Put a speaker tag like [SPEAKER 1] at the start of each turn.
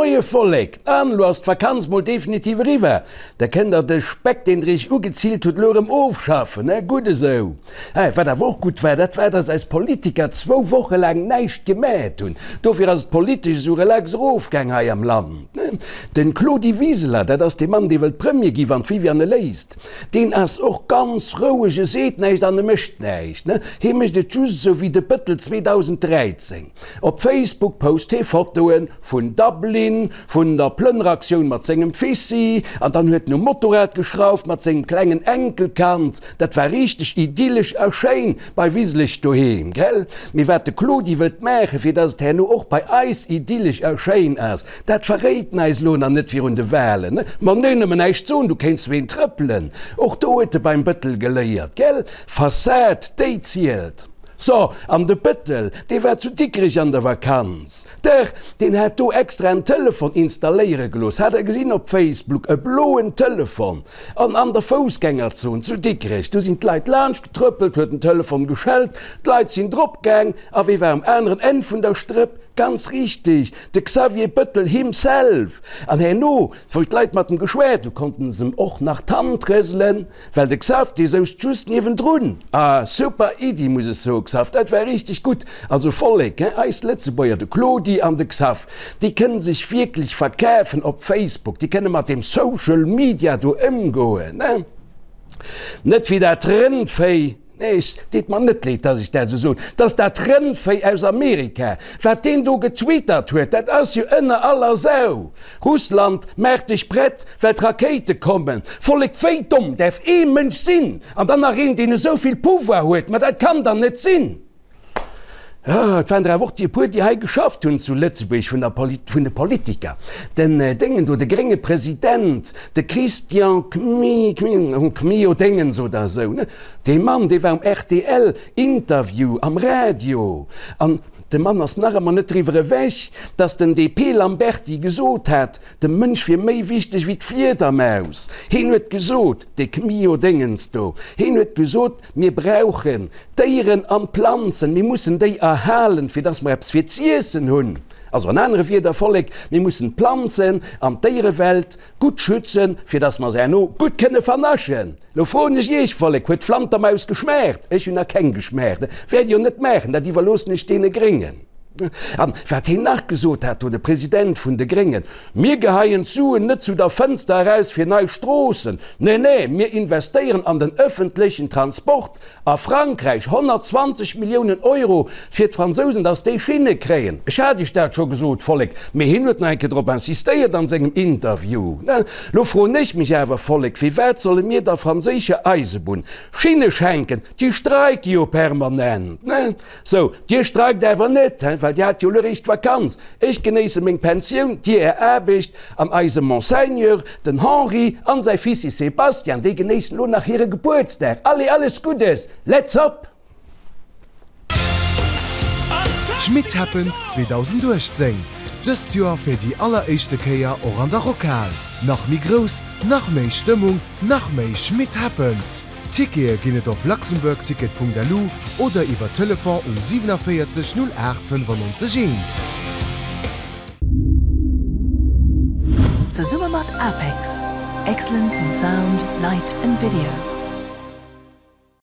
[SPEAKER 1] Moie Vollek! An elo ass d'Vakanz mol definitiv eriwwer. Da kënnt der de Speck, deen der iech ugezillt hutt, elo erëm ofschaffen, he? Gutt esou. He, wat awer och gutt war, dat war, dass eis Politiker zwou Woche laang näischt gemat hunn. Dofir ass et politesch esou relax erofgaang hei am Land, ne? Den Claudi Wiseler, dat ass dee Mann, dee wëllt Premier gi wann d'Viviane e léisst, deen ass och ganz roueg, e seet näischt an e mécht näischt, ne? Hee mécht et just esou wéi de Bëttel 2013. Op Facebook post hee Fotoe vun Dublin, vun der Plënneraktioun mat sengem Fissi an dann huet en um Motorrad geschrauft mat sengem klengen Enkelkand. Dat war richteg idyllesch a schéin bei Wiseleg doheem, gell? Mee wat de Claudi wëllt maachen, fir dass et herno och bei eis idyllesch a schéin ass, dat verréit en eis elo nach net virun de Wahlen. Ma nee, nëmmen näischt soen, du kéints ween trëppelen. Och do huet e beim Bëttel geléiert, gell? Fassad, déi zielt. So, an de Bëttel, dee war zu Dikrech an der Vakanz. Dach, deen hat do extra en Telefon installéiere gelooss, hat der gesinn op Facebook, e bloen Telefon. An an der Foussgängerzon zu Dikrech, do sinn d'Leit laanscht getrëppelt, huet den Telefon geschellt, d'Leit sinn drop gaang, a wee war um aneren Enn vun der Strëpp? Ganz richteg, de Xavier Bëttel himself! An herno, wou d'Leit mat em geschwat hu, konnten s'em och nach d'Hand rëselen. Well de Xav, dee souz just niewendrun. Ah, super Iddi, muss ech soen, Xav, dat war richteg gutt. Also Vollek, hein, eis Lëtzebuerger, de Claudi an de Xav, déi kënnen sech wierklech verkafen op Facebook, déi kënne mat deem Social Media do ëmgoen, hein. Net wéi dat Rëndvéi, nee, et deet mer net leed, dass ech dat esou soen, dass dat Rëndvéi aus Amerika, wat deen do getwittert huet, dat ass jo ënner aller Sau. Russland, maach dech prett, well d'Rakéite kommen. Vollek, wéi domm däerf ee Mënsch sinn? An dann nach een, deen esou vill Pouvoir huet, ma dat kann dann net sinn! Et waren der awer och déi e puer, déi hei geschafft hunn zu Lëtzebuerg vun der vun de Politiker. Den Déngen do, de grénge President, de Christian Kmi, Kmi, Kmio Déngens oder esou, ne? Dee Mann, dee war um rtl Interview am Radio an De Mann ass nach ëmmer net driwwer ewech, datt den DP Lamberty gesot hat, de Mënsch wier méi wichteg wéi d'Fliedermaus. Heen huet gesot, dee Kmio Déngens do, heen huet gesot, mir brauchen d'Déieren an d'Planzen, mir mussen déi erhalen, fir datt mer eppes fir z'iessen hunn. Also an anere Wierder, Vollek, mir mussen d'Planzen an d'Déierewelt gutt schützen, fir datt mer se herno gutt kënne vernaschen. Lo froen ech iech, Vollek, huet d'Flantermaus geschmaacht? Ech hunn nach keng geschmaacht. Wäert jo net maachen, dat iwwerloossen ech deene Gréngen. An wat heen nach gesot hat do, de President vun de Gréngen, Mir geheien d'Suen net zu der Fënster eraus fir nei Stroossen, nee, nee, mir investéieren an den ëffentlechen Transport. A Frankräich 120 Milliounen Euro fir d'Fransousen, datt déi Schinne kréien. Ech hat Iech dat scho gesot, Vollek, mee hien huet nach eng Kéier drop insistéiert an sengem Interview. Lo froen ech mech awer, Vollek, firwat solle mir der franséischer Eisebunn Schinne schenken? Déi streike jo permanent. Sou, Dir streikt awer net, well Dir hat jo elo eréischt Vakanz. Ech genéisse meng Pensioun, Dir Är Aarbecht, an eise Monseigneur, den Henri, an säi Fissi Sebastian, déi genéissen elo nach hire Gebuertsdag. Allez, alles Guddes! Let's hop!
[SPEAKER 2] Schmit Happens 2018, dëst Joer fir déi alleréischte Kéier och an der Rockhal. Nach méi grouss, nach méi Stëmmung, nach méi Schmit Happens! Tickete ginn et op luxembourgticket.lu oder iwwer Telefon um 47 08 95 1.
[SPEAKER 3] Zesumme mat APEX, Excellence in Sound, Light and Video.